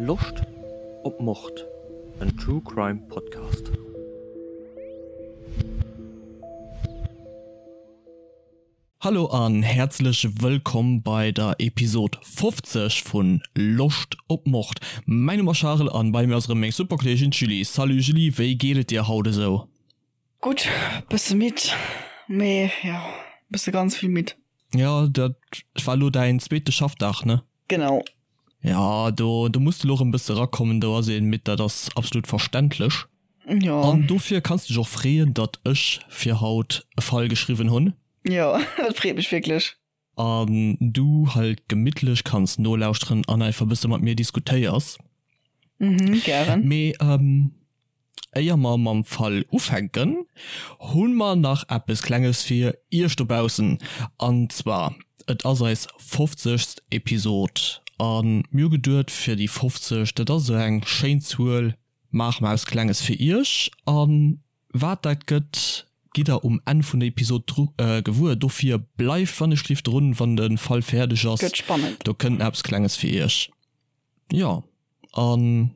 Loscht op Mord? En True Crime Podcast. Hallo an häerzlech wëllkomm bei der Episod 50 vun Loscht op Mord. Mäin Numm ass Charel an bei mir ass erëm meng super Kolleegin d'Julie. Salut Julie, wéi geet et dir haut esou? Gutt, bësse midd, mee jo, bësse ganz vill midd. Jo, dat war elo däin zweete Schaffdag, ne? Genau. Ja, do, do muss de lo erëm bësse rakommen, do ass een midd, dat ass absolut verständlech. Jo. An dofir kanns de dech och freeën, datt ech fir haut e Fall geschriwwen hunn. Jo, dat freet mech wierklech. An du halt gemittlech kanns nolauschteren an einfach bësse mat mir diskutéiers. Mhm, gären. Mee éier mer mam Fall ufänken, hu mer nach eppes Klenges fir iech dobaussen. An zwar, et ass eis fofzegst Episod a mir hu geduet, fir déi 50, dat ass esou eng schéin Zuel, maache mer eppes Klenges fir iech. A wat dat gëtt, gitt der um Enn vun der Episod gewuer. Dofir bleift wannechgelift drun, wann de Fall fäerdeg ass. Gëtt spannend. Do kënnt nach eppes Klenges fir iech. Jo, an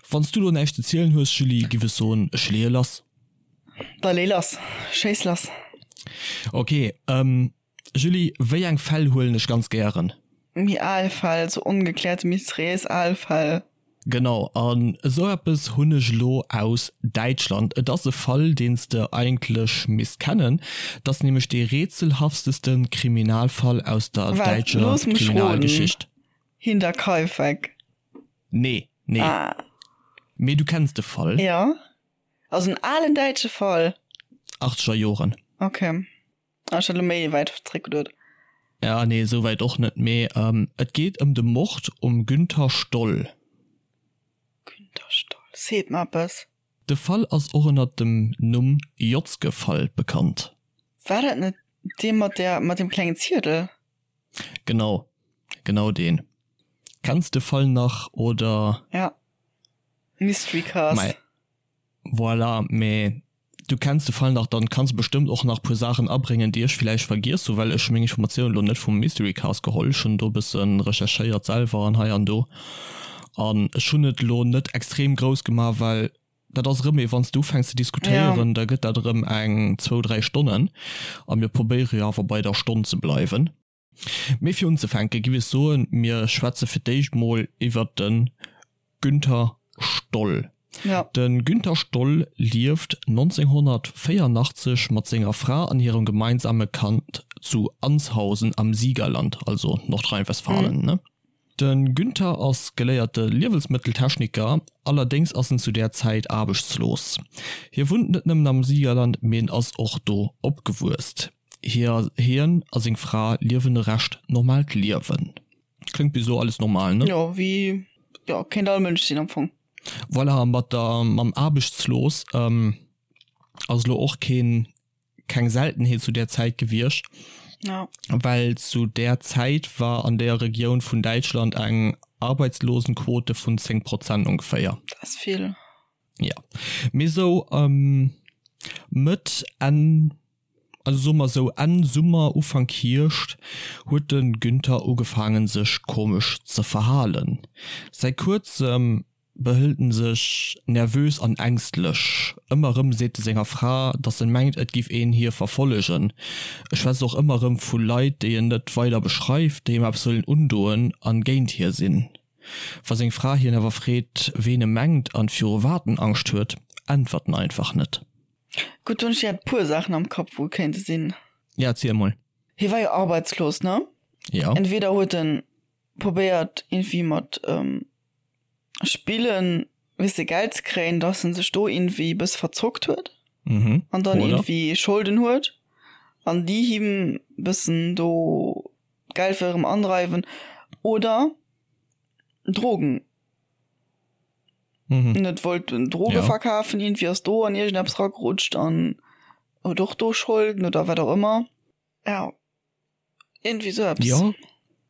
wann s du lo näischt ze zielen hues, Julie, giff ech soen, ech leeë lass. Da lee lass, schéiss lass. Ok, Julie, wéi eng Fäll huelen ech ganz gären? Méi al Fäll, sou ongeklärte mysteriéis al Fäll. Genau, an esou eppes hunn ech elo aus Däitschland. Et ass e Fall, deen s de eigentlech misst kennen. Et ass nämlech dee rätselhafteste Kriminalfall aus der Waart, däitscher looss mech roden, Kriminalgeschicht. Hinterkaifeck? Nee, nee. Ah. Mee du kenns de Fall? Jo, also en alen däitsche Fall. Achtzeger Joren. Ok, ah, ech hat elo méi wäit zréck geduet. Ja, nee, esou wäit och net, mee et geet ëm de Mord um Günther Stoll. Günther Stoll, seet mer eppes. De Fall ass och ënnert dem Numm Jotzke-Fall bekannt. War dat net dee mat der, mat deem klengen Ziedel? Genau, genau deen. Kenns de Fall nach oder? Ja, Mystery Cast. Mei, voilà, mee du kenns de Fall nach, dann kanns de bestëmmt och nach puer Saachen abréngen, déi ech villäicht vergiess hu, well ech hu meng Informatiounen elo net vum Mystery Cast geholl. Ech hunn do e bësse recherchéiert selwer an hei an do an ech hunn et elo net extrem grouss gemaach, well dat ass erëm ee wann s de ufänks ze diskutéieren, da gëtt dat erëm eng zwou, dräi Stonnen a mir probéiere jo awer bei der Stonn ze bleiwen. Mee fir unzefänke giff ech soen, mir schwätze fir d'éischt mol iwwert de Günther Stoll. De Günther Stoll lieft 1984 mat senger Fra an hirem gemeinsame Kand zu Anshausen am Siegerland, also Nordrhein-Westfalen, ne? De Günther ass geléierte Liewensmëtteltechniker, allerdéngs ass en zu där Zäit aarbechtslos. Hie wunnt net nëmmen am Siegerland, mee en ass och do opgewuess. Hien a seng Fra liewen e recht normaalt Liewen. Kléngt bis elo alles normal, ne? Jo, wéi, jo, kéint all Mënsch sinn am Fong. Voilà, a mat der, mam aarbechtslos ass elo och keen keng Seltenheet zu där Zäit gewiescht, ja. well zu där Zäit war an där Regioun vun Däitschland eng Arbeitslosenquote vun 10 Prozent ongeféier. Dat ass vill. Ja, mee sou Mëtt, Enn, also soe mer sou Enn Summer, Ufank Hierscht huet de Günther ugefaangen sech komesch ze verhalen. Säi kuerzem behëlt en sech nervös an ängstlech. Ëmmer erëm seet e senger Fra, datt en mengt, et giff een hie verfollegen. E schwätzt och ëmmer erëm vu Leit, déi en net weider beschreift, déi him eppes wëllen undoen an géint hie sinn. Wa seng Fra hien awer freet, ween e mengt an viru wat en Angscht huet, äntwert en einfach net. Gutt, do hunn ech direkt puer Saachen am Kapp, wou et kéinte sinn. Ja, erziel mol. Hie war jo arbeitslos, ne? Ja. Entweder huet en probéiert irgendwie mat Spillen weess de Geld ze kréien, dass en sech do irgendwie e bësse verzockt huet mhm. an dann Oder? irgendwie Scholden huet an déi him bëssen do Geld wëll erëm andreiwen oder Drogen mhm. net wollt Droge ja. verkafen, irgendwie ass do an iergendeppes ragerutscht an huet och do Scholden oder wat och ëmmer. Ja. Irgendwie sou eppes. Jo,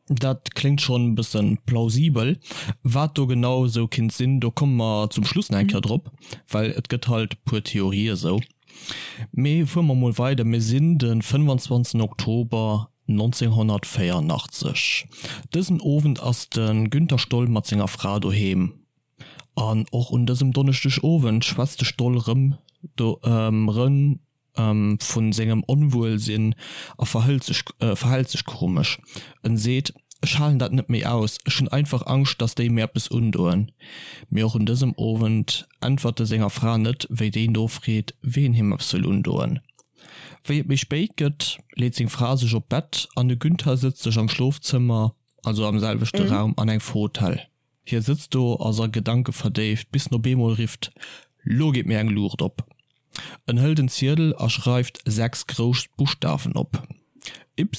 dat kléngt schonn e bëssen plausibel. Wat do genau esou kinnt sinn, do komme mer zum Schluss nach eng Kéier drop, well et gëtt halt e puer Theorië sou. Mee fuere mer mol weider, mir sinn de 25 Oktober. 1984. Dësen Owend ass de Günther Stoll mat senger Fra doheem. An och un dësem Donneschdeg Owend schwätzt de Stoll rëm rëm vu sengem Onwuelsinn a verhëlt sech verhält sech komesch. En seet, Ech halen dat net méi aus, ech hunn einfach Angscht, datt déi mir eppes undoen. Mee och un dësem Owend äntwert e senger Fra net, wéi déi nofreet, ween him eppes wëll undoen. Wéi et méi spéit gëtt, leet seng Fra sech op d'Bett an de Günther sëtzt sech am Schlofzëmmer, also am selwechte Raum, an eng Fotell. Hie sëtzt do, ass a Gedanke verdéift, bis en op eemol rifft, Lo geet mir eng Luucht op! En hëlt en Ziedel a schreift 6 grouss Buschtawen op, Y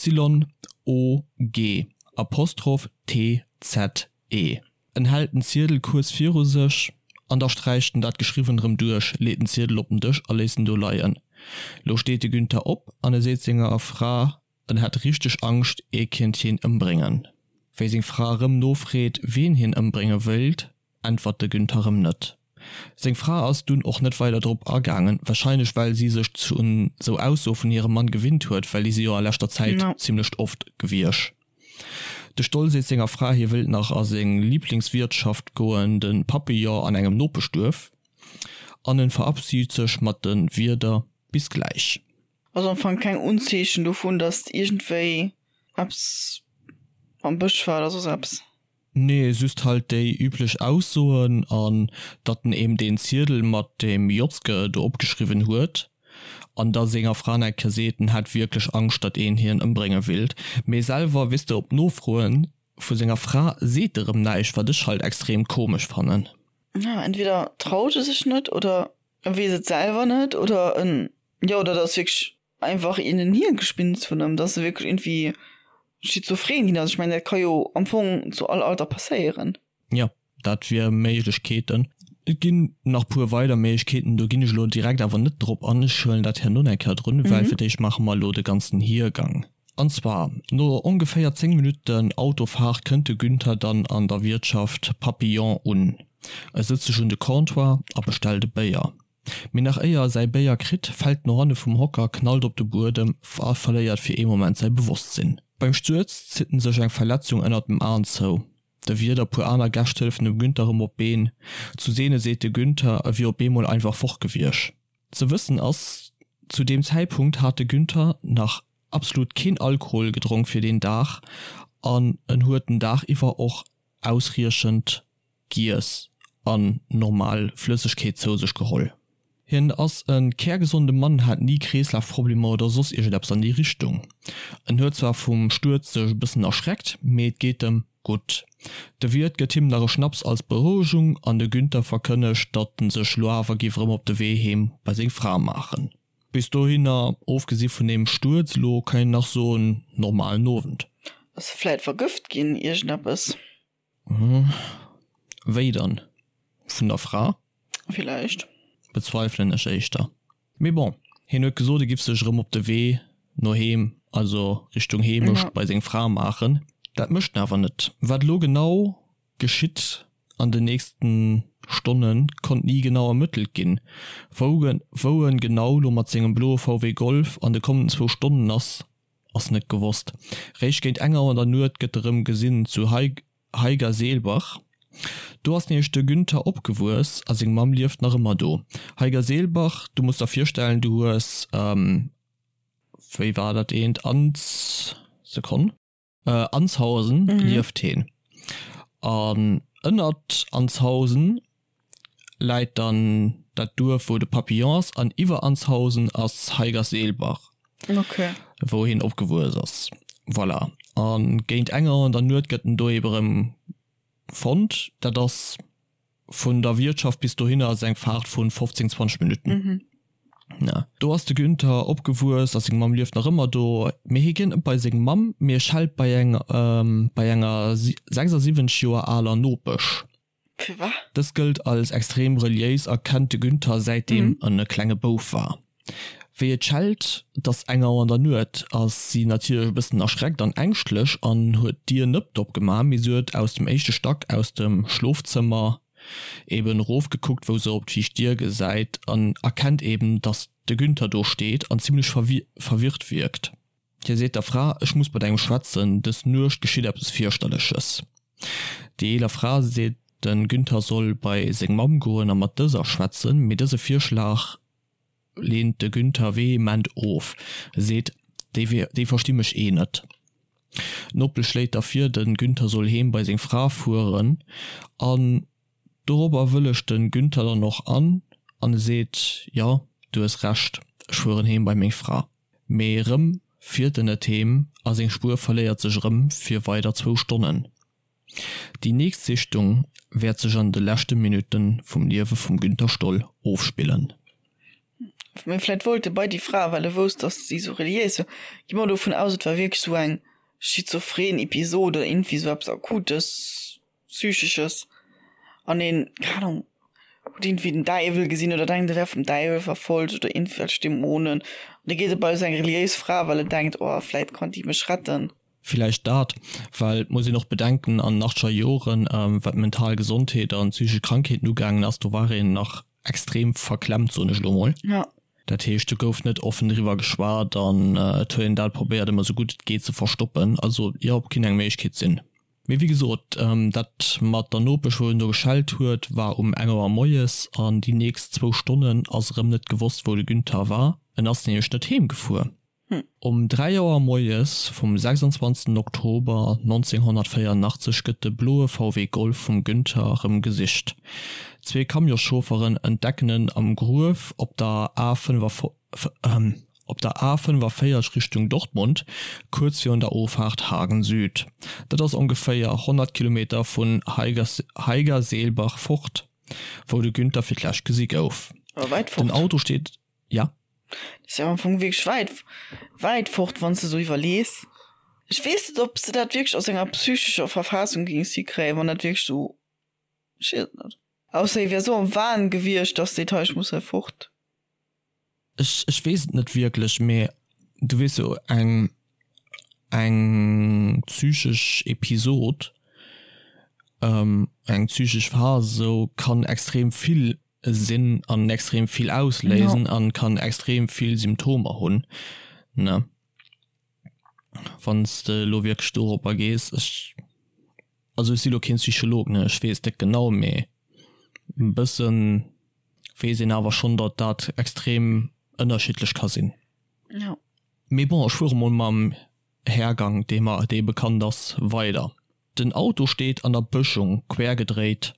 O G Apostroph T Z E. En hält den Ziedel kuerz viru sech an da sträicht en dat Geschriwwent erëm duerch, leet den Ziedel op den Dësch a léisst en do leien. Lo steet de Günther op an e seet senger Fra, En hätt richteg Angscht, ee kéint hien ëmbréngen. Wéi seng Fra erëm nofreet, wien hien ëmbrénge wéilt, äntwert de Günther erëm net. Seng Fra ass dunn och net weider drop agaangen, warscheinlech well si sech un sou Aussoe vun hirem Mann gewinnt huet, well déi si jo a leschter Zäit zimmlecht oft gewiesch. De Stoll seet senger Fra, hie wéilt nach a seng Liblingswirtschaft goen, de Papillon an engem Nopeschduerf, an en verabschied sech mat de Wierder Bis gläich. Also am Fong keng Unzeechen dovun, dass iergendwéi eppes am Bësch war oder soss eppes. Nee, just halt déi üblech Aussoen an datt en eem deen Ziedel mat deem Jotzke do opgeschriwwen huet an da senger Fra nach eng Kéier seet, en hätt wierklech Angscht, datt een hien ëmbrénge willt. Mee selwer, weess de, op Nofroe vu senger Fra seet e rëm näischt, wat ech halt extrem komesch fannen. Ja, entweder traut e sech net oder e weess et selwer net oder en, jo, oder et ass wierklech einfach een en Hirngespinst vun ëm, dass e wierklech iergendwéi schizophren ginn ass. Ech mengen, dat ka jo am Fong zu all Alter passéieren. Jo, dat wier Méiglechkeeten. Et ginn nach puer weider Méiglechkeeten, do ginn ech elo direkt awer net drop an. Ech huelen dat herno eng Kéier drun, well fir d'éischt maache mer elo de ganzen Hiergang. An zwar, no ongeféier 10 Minutten Autofahrt kënnt de Günther dann an der Wiertschaft Papillon un. E sëtzt sech un de Comptoir a bestellt e Béier. Mee nach éier e säi Béier kritt, fält en no hanne vum Hocker, knallt op de Buedem a verléiert fir ee Moment säi Bewosstsinn. Beim Stuerz zitt en sech eng Verletzung ënnert dem Aen zou. De Wiert a puer aner Gäscht hëllefen dem Günther erëm op d'Been. Zu deene seet de Günther, e wier op eemol einfach fort gewiescht. Ze wëssen ass, zu deem Zäitpunkt hat de Günther nach absolut keen Alkohol gedronk fir deen Dag an en huet den Dag iwwer och ausriechend giess an normal Flëssegkeet zou sech geholl. Hien ass e kärgesonde Mann, hat ni Kreeslafproblemer oder soss iergendeppes an déi Richtung. En huet zwar vum Stuerz sech e bëssen erschreckt, mee et geet em gutt. De Wiert gëtt him nach e Schnaps als Berouegung an de Günther verkënnegt, datt en sech lo awer giff erëm op de Wee heem bei seng Fra maachen. Bis dohinner, ofgesi vun deem Stuerz lo, kann een nach soen, normalen Owend. Ass e vläit vergëft ginn, iergendeppes? Wéi dann? Vun der Fra? Villäicht. Bezweifelen ech éischter. Mee bon, hien huet gesot, e giff sech erëm op de Wee no heem, also Richtung Heemecht bei seng Fra maachen. Dat mécht en awer net. Wat elo genau geschitt an den nächsten Stonnen, konnt ni genau ermëttelt ginn. Wou wou en genau lo mat sengem bloe VW Golf an de kommenden zwou Stonnen ass, Ass net gewosst. Réischt géint eng Auer an der Nuet gëtt erëm gesinn zu Haigerseelbach. Do ass nämlech de Günther opgewuess a seng Mamm lieft nach ëmmer do. Haigerseelbach, du muss der virstellen, du hues, wéi war dat eent, Ans, Sekonn. Anzhausen lieft heen. An ënnert Anzhausen läit dann dat Duerf wou de Papillon ass an iwwer Anzhausen ass Haigerseelbach, wou heen opgewuess ass. Voilà. A géint eng Auer an der Nuet gëtt en do ebe rëm fonnt. Dat ass Vun der Wiertschaft bis dohinner ass eng Faart vun 15, 20 Minutten. Mhm. Ja. Do ass de Günther opgewuess a seng Mamm lieft nach ëmmer do. Mee hie geet net bei seng Mamm, mee e schellt bei eng bei enger 76 Joer aler Nopesch. Firwat? Dës gëllt als extrem reliéis a kennt de Günther säitdeem en e klenge Bouf war. Wéi et schellt, 't ass eng Auer an der Nuet, ass si natierlech e bëssen erschreckt an ängschtlech an huet d'Dier nëppt opgemaach, mee si huet aus dem éischte Stack aus dem Schlofzëmmer eben erofgekuckt, wou se op d'viischt Dier gesäit an erkennt eben, dass de Günther do steet an zimmlech verwirrt wierkt. Hie seet der Fra, Ech muss mat engem schwätzen, dës Nuecht geschitt eppes Fierchterleches. Déi eeler Fra seet, de Günther soll bei seng Mamm goen a mat dëser schwätzen, mee dëse Virschlag leent de Günther vehement of, e seet, Déi versti mech eh net. D'Nopesch schléit da vir, de Günther soll heem bei seng Fra fueren an dorobber wëllegt de Günther dann och an an e seet, Jo, du hues Recht, ech fueren heem bei meng Fra. Mee erëm fiert en net heem a seng Spuer verléiert sech erëm fir weider zwou Stonnen. Déi nächst Sichtung wäert sech an de leschte Minutte vum Liewe vum Günther Stoll ofspillen. Mee vläit wollt e bei déi Fra, well e wousst, datt si sou reliéis war. Gi mer dovun aus, et war wierklech sou eng schizophren Episod oder iergendwéi sou eppes Akutes, Psychesches an een, keng Ahnung, huet iergendwéi den Däiwel gesinn oder denkt, e wär vum Däiwel verfolgt oder iergendwelch Dämonen. An da geet e bei sou eng reliéis Fra, well en denkt, oh, vläit kann déi mech retten. Villäicht dat, well et muss een och bedenken, an den achtzeger Joren, wat d'mental Gesondheet an psychesch Krankheeten ugaangen ass, do war een nach extrem verklemmt, soen ech elo mol. Dat heescht, do gouf net offen driwwer geschwat an et huet een dat probéiert, ëmmer esou gutt et geet ze verstoppen. Also jo, kinnt eng Méiglechkeet sinn. Mee wéi gesot, dat mat der Nopesch, wou en do geschellt huet, war um eng Auer moies an déi nächst zwou Stonnen ass erëm net gewosst, wou de Günther war. En ass nämlech net heem gefuer. Um 3 Auer moies vum 26 Oktober 1984 gëtt de bloe VW Golf vum Günther erëm gesicht. Zwee Camionsschaufferen entdecken en am Gruef op der A op der A 45 Richtung Dortmund, kuerz virun der Ofaart Hagen Süd. Dat ass ongeféier 100 Kilometer vun Haigerseelbach fort, wou de Günther fir d'lescht gesi gouf. Awer wäit Den fort. Auto steet, ja? Dat ass jo am Fong wierklech wäit, wäit fort, wann s de esou iwwerlees. Ech weess net, ob s de dat wierklech aus enger psychescher Verfassung géings hikréien, wann dat wierklech esou, ech weess et net. Ausser hie wär esou am Wahn gewiescht, dass seet, hei, ech muss hei fort. Ech, ech weess et net wierklech, mee du weess jo, eng, eng psychesch Episod, eng psychesch Phas esou kann extrem vill sinn an extrem vill ausléisen an kann extrem vill Symptomer hunn, ne? Wann s de elo wierklech doropper gees, ech, also ech si lo keen Psycholog, ne, ech weess net genau, mee e bëssen weess een awer schonn, datt dat extrem ënnerschiddlech ka sinn. Jo. Mee bon, ech fuere mol mam Hergang, dee mer, dee bekannt ass, weider. Den Auto steet an der Bëschung, quer gedréit.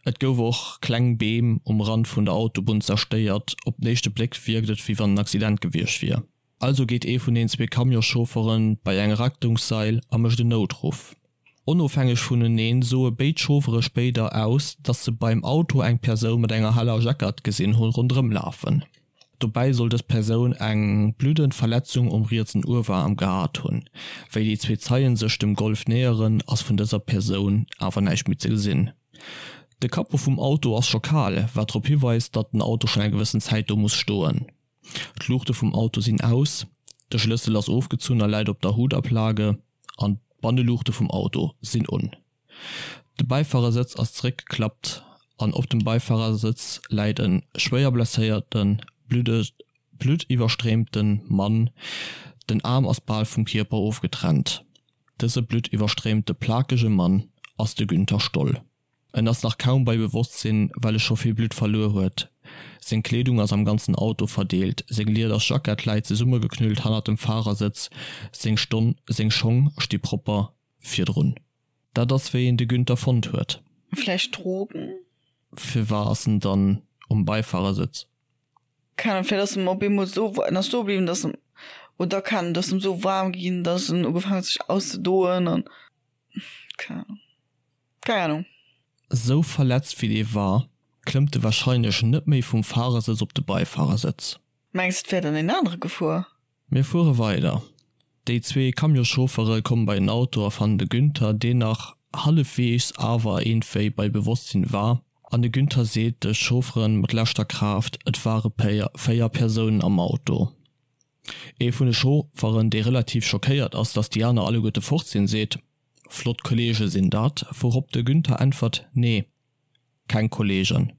Et gouf och kleng Beem um Rand vun der Autobunn zerstéiert. Op den éischte Bléck wierkt et, wéi wann en Accident gewiescht wier. Also geet ee vun den zwee Camionschaufferë bei eng Rettungssail a mécht en Noutruff. Onofhängeg vuneneen soe béid Chauffere spéider aus, datt se beim Auto eng Persoun mat enger heller Jackett gesinn hu ronderëm lafen. Dobäi soll dës Persoun eng bluddend Verletzung um rietsen Uewerarm gehat hunn. Wéi déi zwee Zeien sech dem Golf näheren, ass vun dëser Persoun awer näischt méi ze gesinn. De Capot vum Auto ass scho kal, wat drop hiweist, datt den Auto schonn eng gewëssen Zäit do muss stoen. D'Luuchte vum Auto sinn aus, de Schlëssel ass ofgezunn a läit op der Hutablage an d'Banneluuchte vum Auto sinn un. De Bäifarersëtz ass zeréckgeklappt an op dem Bäifarersëtz läit e schwéier blesséierten, bluttiwwerstréimte Mann. Den Aarm ass bal vum Kierper ofgetrennt. Dëse bluttiwwerstréimte plakege Mann ass de Günther Stoll. En ass nach kaum bei Bewosstsinn, well e scho vill Blutt verluer huet. Seng Kleedung ass am ganzen Auto verdeelt, seng lieders Jackett läit zesummegeknüllt hannert dem Fahrersëtz, seng Stonn, seng Schong sti propper virdrun. Dat ass wéi een de Günther fonnt huet. Vläicht Drogen? Firwar ass en dann um Beifahrersëtz? Keng Ahnung, vläicht ass em op eemol esou, en ass stoe bliwwen, dass em, oder keng Ahnung, dass em esou waarm ginn, dass en ugefaangen huet sech auszedoen an, keng Ahnung. Keng Ahnung. Sou verletzt wéi dee war, klëmmt e warscheinlech net méi vum Fahrersëtz op de Beifarersëtz. Mengs et wär dann een anere gefuer? Mir fuere weider. Déi zwee Camionschauffere komme bei den Auto a fannen de Günther, deen nach hallefweegs awer iergendwéi bei Bewosstsinn war. An de Günther seet de Chauffere mat leschter Kraaft, et ware 4 Persounen am Auto. Ee vun de Chaufferen, dee relativ schockéiert ass, datt déi aner alleguerte fort sinn, seet, Flott Kollege sinn dat, wourop de Günther äntwert, Nee, keng Kollegen.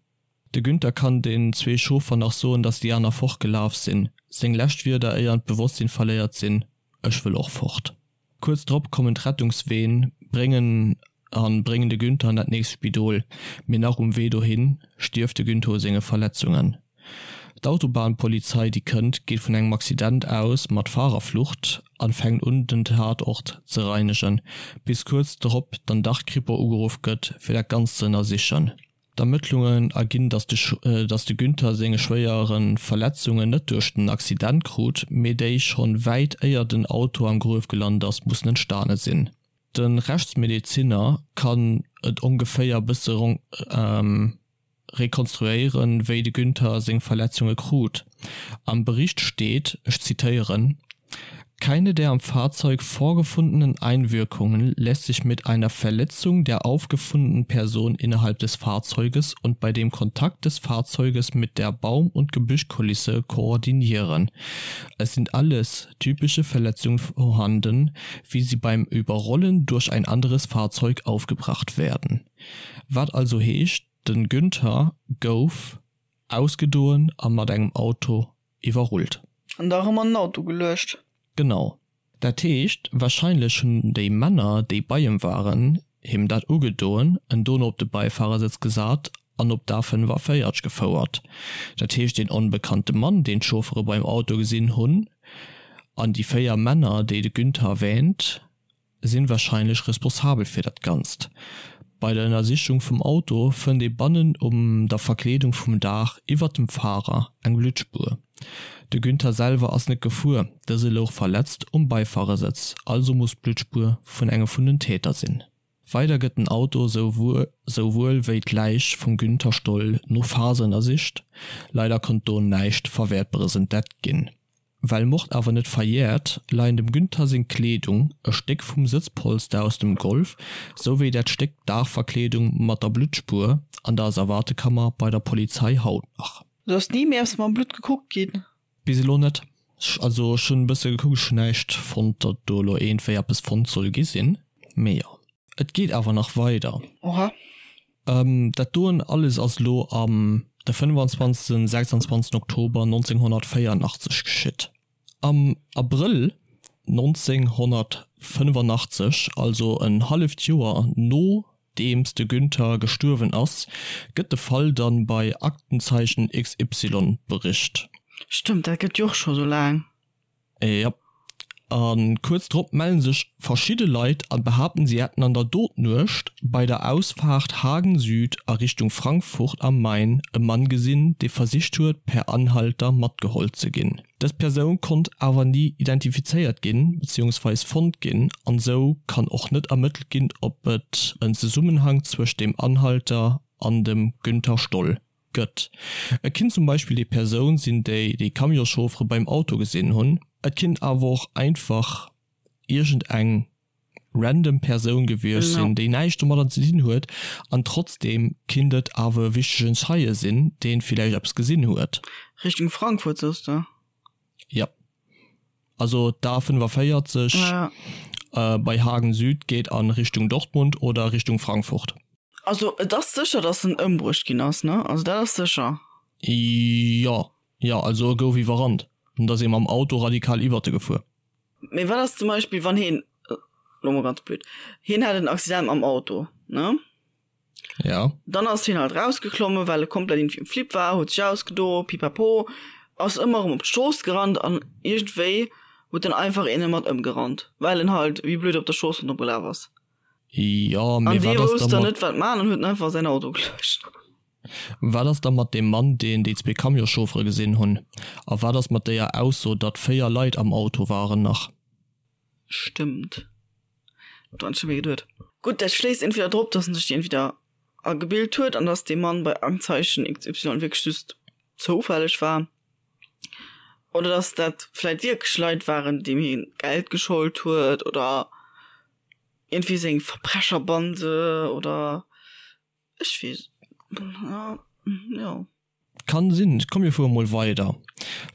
De Günther kann den zwee Chauffer nach soen, datt déi aner fortgelaf sinn. Seng lescht Wierder éier en d'Bewosstsinn verléiert sinn. Ech wëll och fort. Kuerz drop kommen d'Rettungsween, bréngen an bréngen de Günther an dat nächst Spidol, mee nach um Wee dohin stierft de Günther u senge Verletzungen. D'Autobahnpolizei déi kënnt, geet vun engem Accident aus mat Fahrerflucht an fänkt un den Tatort ze reinegen, bis kuerz drop dann dach d'Kripo ugeruff gëtt fir dat Ganzt ze ënnersichen. D'Ermëttlungen erginn, datt de Günther senge schwéiere Verletzungen net duerch den Accident krut, mee déi schonn wäit éier den Auto am Gruef gelant ass, mussen entstane sinn. De Rechtsmedezinner kann et ongeféier bësse rekonstruéieren, wéi de Günther seng Verletzunge krut. Am Bericht steet, ech zitéieren, Keine der am Fahrzeug vorgefundenen Einwirkungen lässt sich mit einer Verletzung der aufgefundenen Person innerhalb des Fahrzeuges und bei dem Kontakt des Fahrzeuges mit der Baum- und Gebüschkulisse koordinieren. Es sind alles typische Verletzungen vorhanden, wie sie beim Überrollen durch ein anderes Fahrzeug aufgebracht werden. Wat also heescht, den Günther gouf ausgedoen a mat engem Auto iwwerrullt. An da erëm an den Auto geluecht. Genau. Dat heescht, wahrscheinlech hunn déi Männer, déi bei em waren, him dat ugedoen, en dono op de Beifahrersëtz gesat an op d'A45 gefouert. Dat heescht, deen onbekannte Mann, deen d'Chauffere beim Auto gesinn hunn, an déi 4 Männer, déi de Günther erwähnt, sinn wahrscheinlech responsabel fir dat Ganzt. Bei der Ënnersichung vum Auto fënnt ee bannen um der Verkleedung vum Daach iwwert dem Fahrer eng Bluttspuer. De Günther selwer ass net gefuer, dëse louch verletzt um Beifahrersëtz, also muss d'Bluttspuer vun engem vun den Täter sinn. Weider gëtt den Auto souwuel wéi d'Läich vum Günther Stoll no Phase ënnersicht, leider konnt do näischt Verwäertberes entdeckt ginn. Well Mord awer net verjäert, leien dem Günther seng Kleedung, e Stéck vum Sëtzpolster aus dem Golf, souwéi dat Stéck Daachverkleedung mat der Bluttspuer an der Asservatekammer bei der Polizei haut nach. Do ass ni méi eppes mam Blutt gekuckt ginn? Bis elo net. Also ech hunn e bësse gekuckt, ech hunn näischt fonnt, datt do elo iergendwéi eppes fonnt soll gi sinn. Mee jo. Et geet awer nach weider. Oha. Dat doen alles ass elo am de 25. 26. Oktober 1984 geschitt. Am Abrëll 1985, also en halleft Joer nodeems de Günther gestuerwen ass, gëtt de Fall dann bei Aktenzeichen XY bericht. Stëmmt, dat gëtt jo och scho sou laang. Jop. A kuerz drop mellen sech verschidde Leit an behaapten si hätten an der Dotnuecht bei der Ausfaart Hagen Süd a Richtung Frankfurt am Main e Mann gesinn, dee versicht huet per Anhalter matgeholl ze ginn. Dës Persoun konnt awer ni identifizéiert ginn beziehungsweis fonnt ginn an sou kann och net ermëttelt ginn ob et en Zesummenhang zwëscht dem Anhalter an dem Günther Stoll gëtt. Et kinnt zum Beispill déi Persoun sinn, déi déi Camionschauffere beim Auto gesinn hunn. Et kinnt awer och einfach iergend eng random Persoun gewiescht sinn, déi näischt domadder ze dinn huet an trotzdeem kinnt et awer e wichtegen Zeie sinn, deen villäicht eppes gesinn huet. Richtung Frankfurt soss de? Jo. Also d'A45 bei Hagen Süd geet a Richtung Dortmund oder Richtung Frankfurt. Also et ass sécher, datt en ëmbruecht ginn ass, ne? Also dat ass sécher. Jo, jo, also e gouf iwwerrannt. Et ass ee mam Auto radikal iwwert e gefuer. Mee wat ass zum Beispill, wann hien, elo mol ganz blöd, hien hat en Accident mam Auto, ne? Ja. Dann ass hien halt rausgeklommen, well e komplett irgendwie um Flipp war, huet sech ausgedo, pipapo, ass ëmmer erëm op d'Strooss gerannt an iergendwéi huet dann einfach een e mat ëmgerannt, well en halt wéi blöd op der Strooss ronderëm gelaf ass. Jo, mee An dee wat ass wousst da dann mat. net wat man an huet en einfach säin Auto geluecht. Wat ass da mat deem Mann, deen déi zwee Camionschauffere gesinn hunn? A wat ass mat déier Ausso, datt 4 Leit am Auto waren nach? Stëmmt. Do han ech net méi geduet. Gutt, dat schléisst entweder drop, dass en sech déi entweder agebilt huet an dass dee Mann bei Aktenzeichen XY wierklech just zoufälleg war, oder dass dat vläit wierklech Leit waren, deem hie Geld geschollt huet oder iergendwéi seng Verbrecherbande oder ech weess jo. Kann sinn. Komm mir fuere mol weider,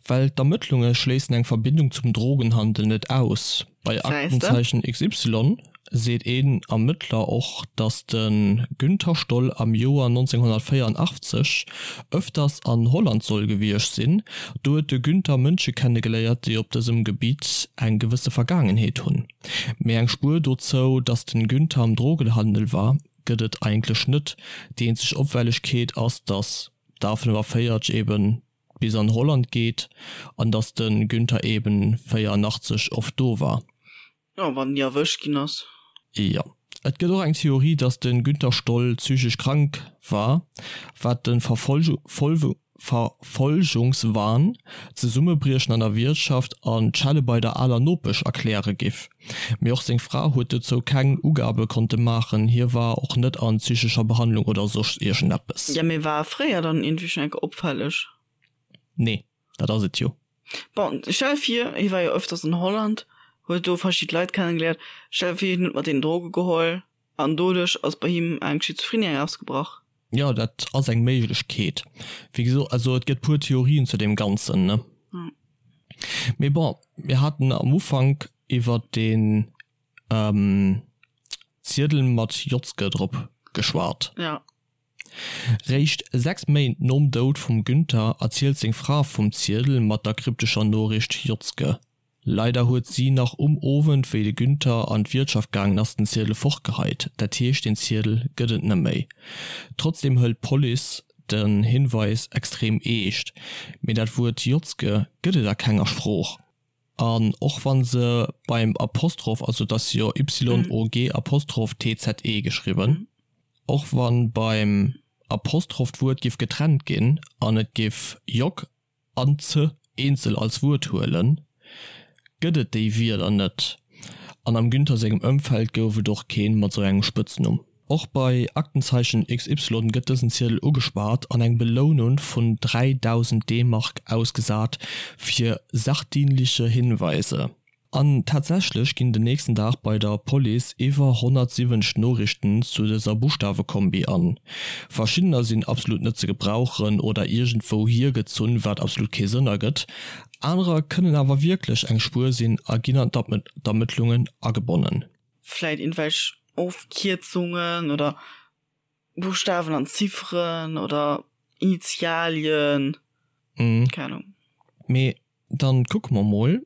well d'Ermëttlunge schléissen eng Verbindung zum Drogenhandel net aus. Bei Aktenzeichen XY. seet een Ermëttler och, datt de Günther Stoll am Joer 1984 ëfters an Holland soll gewiescht sinn. Do huet de Günther Mënsche kennegeléiert, déi op dësem Gebitt eng gewësse Vergaangenheet hunn. Mee eng Spuer dozou, datt de Günther am Drogenhandel war, gëtt et eigentlech net. Déi eenzeg Opfällegkeet ass, datt d'A 45 eben bis an Holland geet an datt de Günther eben 84 oft do war. Jo, wann ni erwëscht ginn ass. Jo. Et gëtt och eng Theorie, datt de Günther Stoll psychesch krank war, wat de Verfolgungswahn, d'Zesummebriechen an der Wiertschaft an d'Schelle bei der aler Nopesch erkläre giff. Mee och seng Fra huet dozou keng Ugabe konnte maachen, hie war och net an psychescher Behandlung oder soss iergendeppes. Jo, mee war e fréier dann iergendwéi schonn eng Kéier opfälleg? Nee, dat ass et jo. Bon, stell vir, hie war jo öfters an Holland, huet do verschidde Leit kennengeléiert, stell vir, hien huet mat deenen Droge geholl an doduerch ass bei him eng Schizophrenie ausgebrach. Jo, dat ass eng Méiglechkeet. Wéi gesot, also et gëtt puer Theorien zu deem Ganzen, ne? Mee bon, mir haten am Ufank iwwert deen Ziedel mat Jotzke drop geschwat. Ja. Réischt 6 Méint nom Doud vum Günther erzielt seng Fra vum Ziedel mat der kryptescher Noriicht Jotzke. Leider huet si nach um Owend, wéi de Günther an d'Wiertschaft gaangen ass, den Ziedel fortgeheit. Dat heescht, den Ziedel gëtt et net méi. Trotzdeem hëlt d'Police den Hinweis extrem eescht. Mee dat Wuert Jotzke gëtt et a kenger Sprooch. An och wann se beim Apostroph, also et ass jo YOG Apostroph TZE geschriwwen, och wann beim Apostroph d'Wuert giff getrennt ginn an et giff Jog an ze eenzel als Wuert huelen, gëtt et déi Wierder net. An am Günther sengem Ëmfeld gouf et och keen mat sou engem Spëtznumm. Och bei Aktenzeichen XY gëtt dësen Ziedel ugespaart an eng Belounun vun 3.000 D-Mark ausgesat fir sachdienliche Hinweise. An tatsächlech ginn den nächsten Dag bei der Police iwwer 170 Noriichten zu dëser Buschtawekombi an. Verschiddener sinn absolut net ze gebrauchen oder iergendwou hiergezunn, wat absolut kee Sënn ergëtt. Anerer kënnen awer wierklech eng Spuer sinn a ginn an d'Ermëttlungen agebonnen. Vläit irgendwelch Ofkierzungen oder Buchstawen an Zifferen oder Initialien, keng Ahnung. Mee dann kucke mer mol.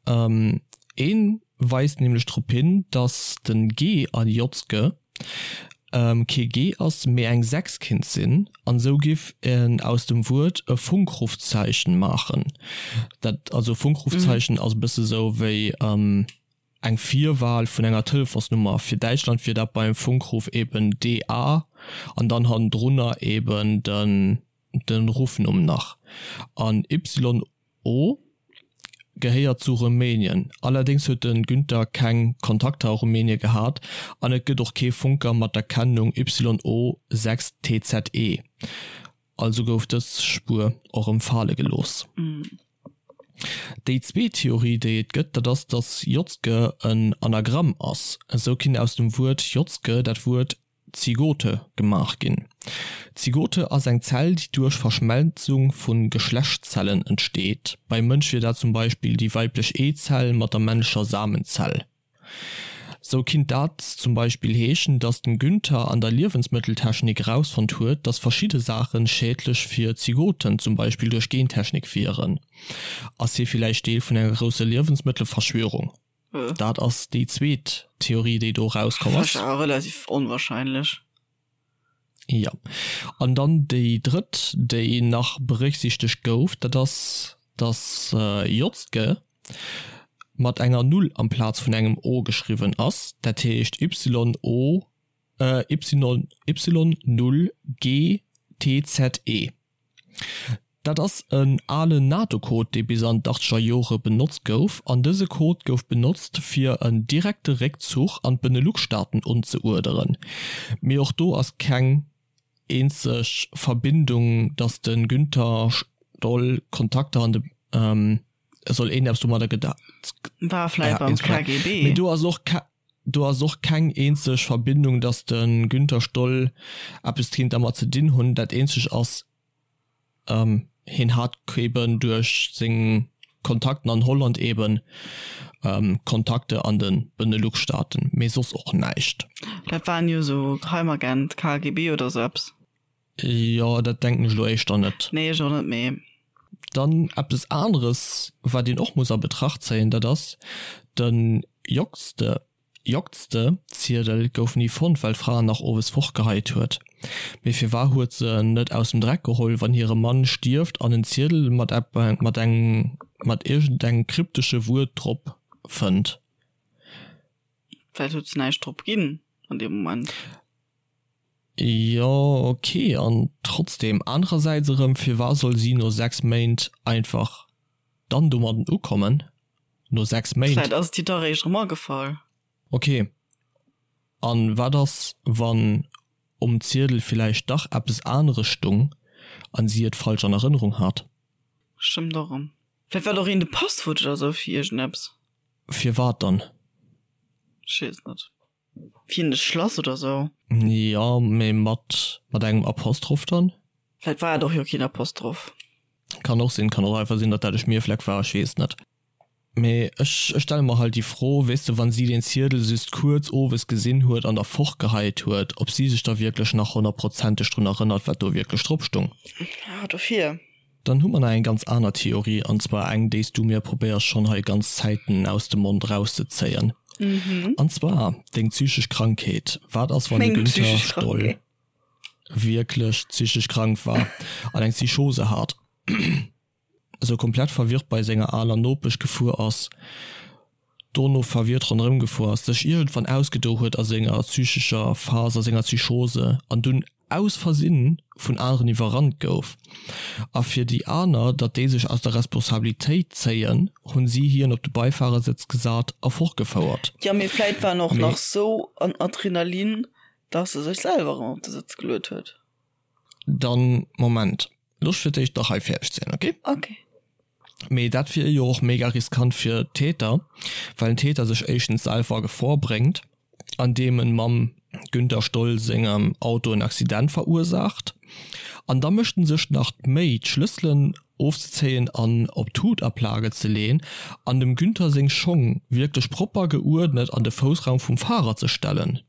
Een weist nämlech drop hin, dass den G an Jotzke kee G ass, mee eng 6 kinnt sinn, an esou giff en aus dem Wuert e Funkrufzeichen maachen. Dat, also Funkrufzeichen ass e bësse sou wéi eng Virwahl vun enger Telefonsnummer. Fir Däitschland wier dat beim Funkruf eben DA an dann hannendrunner eben den den Ruffnumm nach. An YO gehéiert zu Rumänien. Allerdéngs huet de Günther keng Kontakter a Rumänien gehat an et gëtt och kee Funker mat der Kennung YO6TZE. Also gouf dës Spuer och erëm fale gelooss. Déi zweet Theorie, déi et gëtt, dat ass, datt Jotzke en Anagramm ass. Esou kinnt aus dem Wuert Jotzke dat Wuert Zygote gemaach ginn. D'Zygote ass eng Zell, déi duerch Verschmelzung vu Geschlechtszellen entsteet. Beim Mënsch wier dat zum Beispill déi weiblech Eezell mat der männlecher Samenzell. Sou kinnt dat zum Beispill heeschen, dass den Günther an der Liewensmëtteltechnik erausfonnt huet, dass verschidde Saachen schädlech fir Zygoten, zum Beispill duerch Gentechnik, wieren. Ass hie villäicht Deel vun enger grousser Liewensmëttelverschwörung? Dat ass déi zweet Theorie, déi do erauskomm ass. Awer relativ onwahrscheinlech. Jo. An dann déi drëtt, déi nach berécksiichtegt gouf, dat ass, dass Jotzke mat enger Null amplaz vun engem O geschriwwen ass, dat heescht YO, Y 0 GTZE. Dat ass en alen NATO-Code, dee bis an d'Achtzeger Jore benotzt gouf, an dëse Code gouf benotzt, fir en direkte Réckzuch an d'Benelux-Staaten unzeuerderen. Mee och do ass keng eenzeg Verbindung, datt de Günther Stoll Kontakter an de soll een eppes domadder geda. War vläit beim KGB. Mee do ass och do ass och keng eenzeg Verbindung, datt de Günther Stoll eppes kéint dermat ze dinn hunn. Dat eenzeg ass, hien hat eben duerch seng. Kontakten an Holland eben, Kontakte an de Benelux-Staaten, mee soss och näischt. Dat waren jo sou Geheimagent, KGB oder sou eppes. Jo, dat denken ech elo éischter net. Nee, ech och net, mee. Dann eppes aneres, wat een och muss a Betracht zéien, dat ass de Jocste. Jocste Ziedel gouf ni fonnt, well d'Fra en nach owes fortgeheit huet. Mee firwar huet se en net aus dem Dreck geholl, wann hire Mann stierft an en Ziedel mat mat engem mat iergendengem kryptesche Wuert drop fënnt? Vläicht huet se näischt drop ginn an deem Moment. Jo, ok, an trotzdem, anerersäits erëm, firwar soll si no 6 Méint einfach dann domadden ukommen? No 6 Méint? Vläit ass et hir da réischt erëm agefall. Ok, an wat ass, wann um Ziedel villäicht dach eppes aneres stung an si et falsch an Erënnerung hat? Stëmmt och erëm. Vläit war et och een de Passwuert oder sou fir iergendeppes. Firwat dann? Ech weess net. Fir de Schlass oder sou. Jo, mee mat mat engem Apostroph dann? Vläit war et och jo keen Apostroph. Kann och sinn, kann och einfach sinn, datt dat e Schmierfleck war, ech weess net. Mee ech ech stelle mer halt déi Fro, weess de, wann si deen Ziedel just kuerz owes gesinn huet an da fortgeheit huet, ob si sech da wierklech nach honnertprozenteg drun erënnert, wat do wierklech drop stung. Ja, dofir. Dann hu mer nach eng ganz aner Theorie, an zwar eng, déi s du mir probéiers schonn hei ganz Zäiten aus dem Mond erauszezéien. An zwar deng psychesch Krankheet. Wat ass, wann de Günther Stoll wierklech psychesch krank war an eng Psychose hat, esou komplett verwirrt bei senger aler Nopesch gefuer ass, dono verwirrt ronderëm gefuer ass, sech iergendwann ausgedo huet a senger psychescher Phas, a senger Psychose an dunn aus Versinn vun aneren iwwerrannt gouf. A fir déi aner, datt déi sech aus der Responsabilitéit zéien, hunn si hien op de Beifahrersëtz gesat a fortgefouert. Jo, mee vläit war en och nach sou an Adrenalin, datt e sech selwer erëm op de Sëtz geluet huet. Dann, Moment, looss fir d'éischt nach hei fäerdeg sinn, ok? Ok. Mee dat wier jo och mega riskant fir d'Täter, well den Täter sech éischtens selwer a Gefor bréngt, andeem en mam Günther Stoll sengem Auto en Accident verursaacht, an da mécht en sech nach d'Méi d'Schlësselen ofzezéien an op d'Hutaplage ze leen an dem Günther seng Schong wierklech propper geuerdnet an de Foussraum vum Fahrer ze stellen.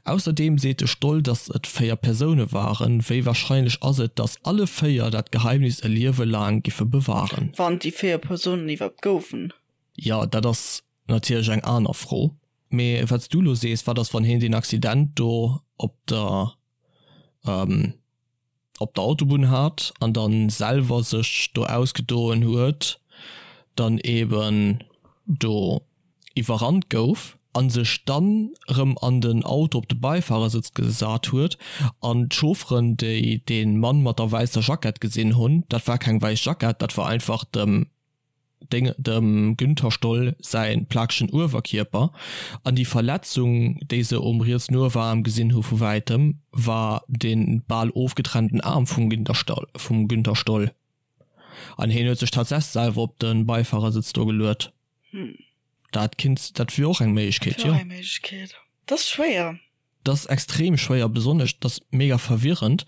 Ausserdeem seet de Stoll, datt et 4 Persoune waren. Wéi warscheinlech ass et, datt alle 4 dat Geheimnis e Liewe laang giffe bewahren? Wann et déi 4 Persounen iwwerhaapt goufen. Jo, dat ass natierlech eng aner Fro. Mee wat s du elo sees, wat ass wann hien deen Accident do op der op der Autobunn hat an dann selwer sech do ausgedoen huet, dann eben do iwwerrannt gouf an sech dann erëm an den Auto op de Beifahrersëtz gesat huet an d'Chaufferen déi dee Mann mat der wäisser Jackett gesinn hunn, dat war keng wäiss Jackett, dat war einfach dem Deng dem Günther Stoll säi plakegen Uewerkierper an déi Verletzung, déi se um rietsen Ueweraarm gesinn hu vu wäitem, war de bal ofgetrennten Aarm vum vum Günther Stoll. An hien huet sech tatsächlech selwer op de Beifahrersëtz do geluet. Dat kinnt, dat wier och eng Méiglechkeet, jo. Dat wier och eng Méiglechkeet. Dat ass schwéier. Dat ass extrem schwéier, besonnesch, dat ass mega verwirrend,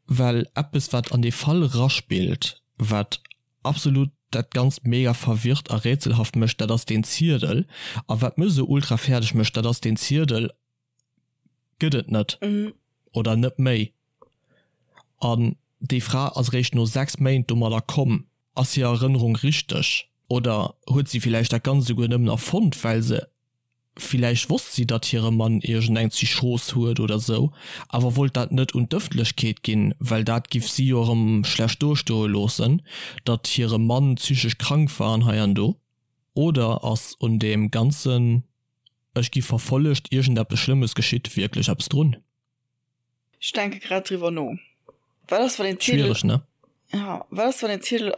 well eppes, wat an dee Fall eraspillt, wat absolut dat ganzt mega verwirrt a rätselhaft mécht, dat ass deen Ziedel. A wat mech esou ultra fäerdeg mécht, dat ass deen Ziedel gëtt et net oder net méi. An déi Fra ass eréischt no 6 Méint domadder komm. Ass hir Erënnerung richteg oder huet si villäicht dat Ganzt esouguer nëmmen erfonnt, well se Villäicht wosst si, datt hire Mann iergendeng Psychos huet oder sou, awer wollt dat net un d'Ëffentlechkeet ginn, well dat giff si jo erëm schlecht dostoe loossen, datt hire Mann psychesch krank war an hei an do. Oder ass un deem ganzen Ech gi verfollegt, iergendeppes Schlëmmes geschitt wierklech eppes drun? Ech denke grad driwwer no. Wat ass, wann een Ziedel. Schwiereg, ne? Ja, wat ass, wann een Ziedel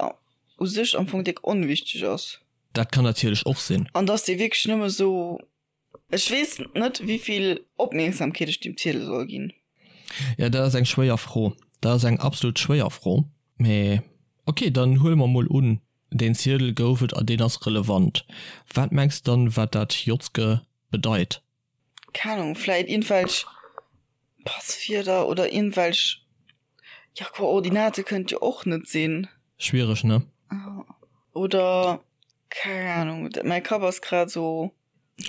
u sech am Fong déck onwichteg ass? Dat kann natierlech och sinn. An dass dee wierklech nëmme sou. Ech weess net, wéivill Opmierksamkeet ech deem Ziedel soll ginn. Ja, dat ass eng schwéier Fro. Dat ass eng absolut schwéier Fro. Mee ok, dann huele mer mol un, deen Ziedel gouf et a deen ass relevant. Wat mengs de dann, wat dat Jotzke bedeit? Keng Ahnung, vläit iergendwelch Passwierder oder iergendwelch, ja, Koordinate kënnt jo och net sinn. Schwiereg, ne? Oder keng Ahnung, mäi Kapp ass grad sou.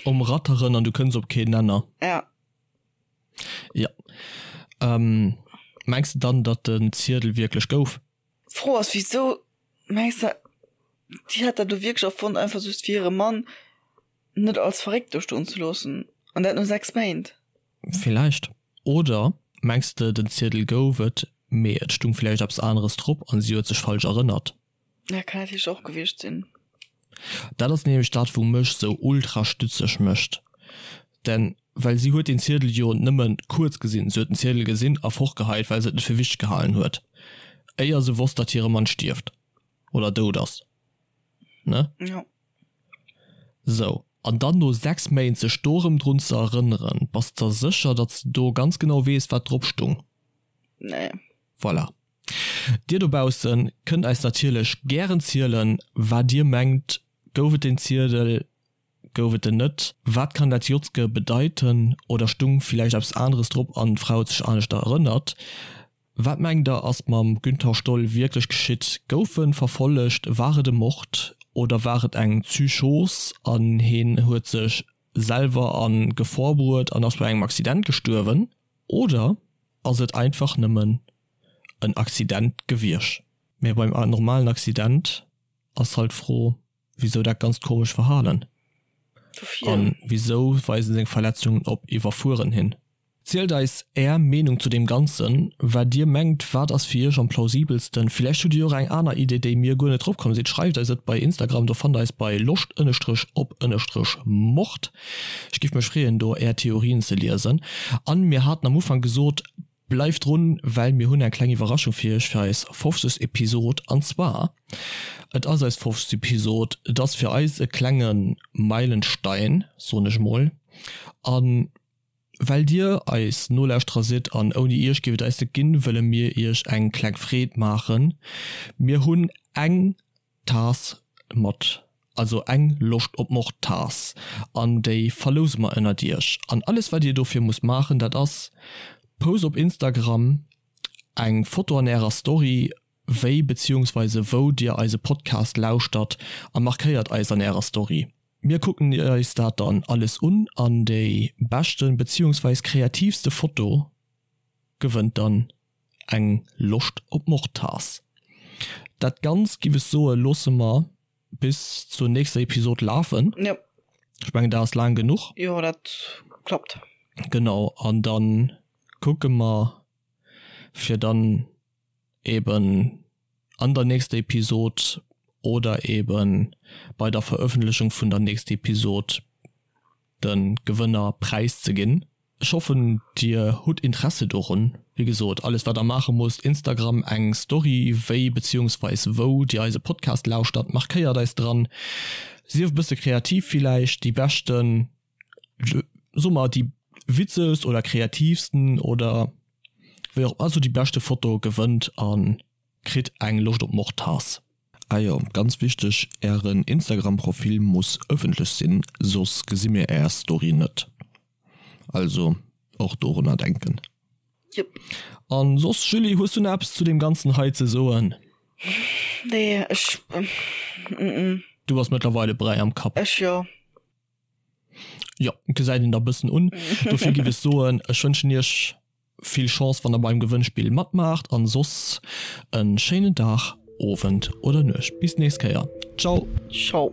Um Ratteren an du kënns op keen Nenner. Ja. Ja. Ähm, mengs de dann, datt den Ziedel wierklech gouf? D'Fro ass, wisou mengs de, déi hat dat do wierklech erfonnt, einfach just fir hire Mann net als verréckt do stoen ze loossen? An dat no 6 Méint? Villäicht. Oder mengs de, den Ziedel gouf et, mee et stung villäicht eppes aneres drop an si huet sech falsch erënnert? Ja, kann natierlech och gewiescht sinn. Dat ass nämlech dat wou mech sou ultra stützeg mécht, denn well si huet den Ziedel jo nëmmen kuerz gesinn, si huet den Ziedel gesinn a fortgeheit well se et net fir wichteg gehalen huet, éier se wosst dat hire Mann stierft oder dout ass, ne? Jo. Sou, an dann no 6 Méint sech do erëm drun ze erënneren, bass der sécher datt s de do ganz genau weess wat drop stung? Nee. Voilà. Dir dobaussen kënnt eis natierlech gären zielen wat dir mengt, gouf et den Ziedel, gouf et en net, wat kann dat Jotzke bedeiten oder stung villäicht eppes aneres drop an d'Fra huet sech aneschter erënnert? Wat mengt der ass mam Günther Stoll wierklech geschitt, gouf en verfollegt, war et e Mord oder war et eng Psychos an heen huet sech selwer a Gefor bruet an ass bei engem Accident gestuerwen oder ass et einfach nëmmen en Accident gewiersch. Mee beim normalen Accident ass halt d'Fro, wisou dat ganzt komesch Verhalen? An wisou weisen seng Verletzungen op Iwwerfueren hin? Zielt eis är Meenung zu deem Ganzen, wat dir mengt, wat ass fir iech am plausibelsten? Villäicht hutt dir och eng aner Idee, déi mir guer net drop komm sinn. Schreift eis et bei Instagram, do fannt der eis bei loscht ënnestrech op ënnestrech mord. Ech giff mech freeën do är Theorien ze liesen. An mir haten am Ufank gesot, Bleift drun, well mir hunn eng kleng Iwwerraschung fir iech fir eis 50. Episod. An zwar, et ass eis 50. Episod, et ass fir eis e klenge Meilenstein, soen ech mol. A well dir eis Nolauschterer sidd an ouni iech géif et eis net ginn, wëlle mir iech eng kleng Freed maachen. Mir hunn eng Taass mat, also eng Loscht op Mord Taass, an déi verlouse mer ënnert iech. An alles wat dir dofir musst maachen, dat ass, Post op Instagram eng Foto an ärer Story, wéi beziehungsweise wou dir eise Podcast lauschtert a markéiert eis an ärer Story. Mir kucken eis dat dann alles un an déi beschten beziehungsweise kreativste Foto gewënnt dann eng Loscht op Mordtaass. Dat Ganzt, giff ech soen, loosse mer bis zur nächster Episod lafen. Jo. Ech mengen, dat ass laang genuch. Jo, dat klappt. Genau, an dann kucke mer, fir dann eben an der nächster Episod oder eben bei der Verëffentlechung vun der nächster Episod de Gewënner präiszeginn. Ech hoffen dir hutt Interesse dorun. Wéi gesot, alles wat der maache musst, Instagram eng Story wéi beziehungsweis wou dir eise Podcast lauschtert, markéiert eis dran, sief e bësse kreativ villäicht, déi beschten, soe mer déi witzegst oder kreativsten oder wéi och, also déi beschte Foto gewënnt a kritt eng Loscht op Mord-Taass. Ah jo, ganz wichteg, ären Instagram Profil muss ëffentlech sinn, soss gesi mir är Story net. Also och dorunner denken. Jep. An soss Julie, hues du nach eppes zu deem ganzen hei ze soen? Nee, ech mm. Du bass mëttlerweile Bräi am Kapp. Ech jo. Jo, gesäit een der bëssen un. Dofir giff ech soen, ech wënschen iech vill Chance wann der beim Gewënnspill matmaacht an soss en schéinen Dag, Owend oder Nuecht. Bis nächst Kéier. Ciao. Ciao.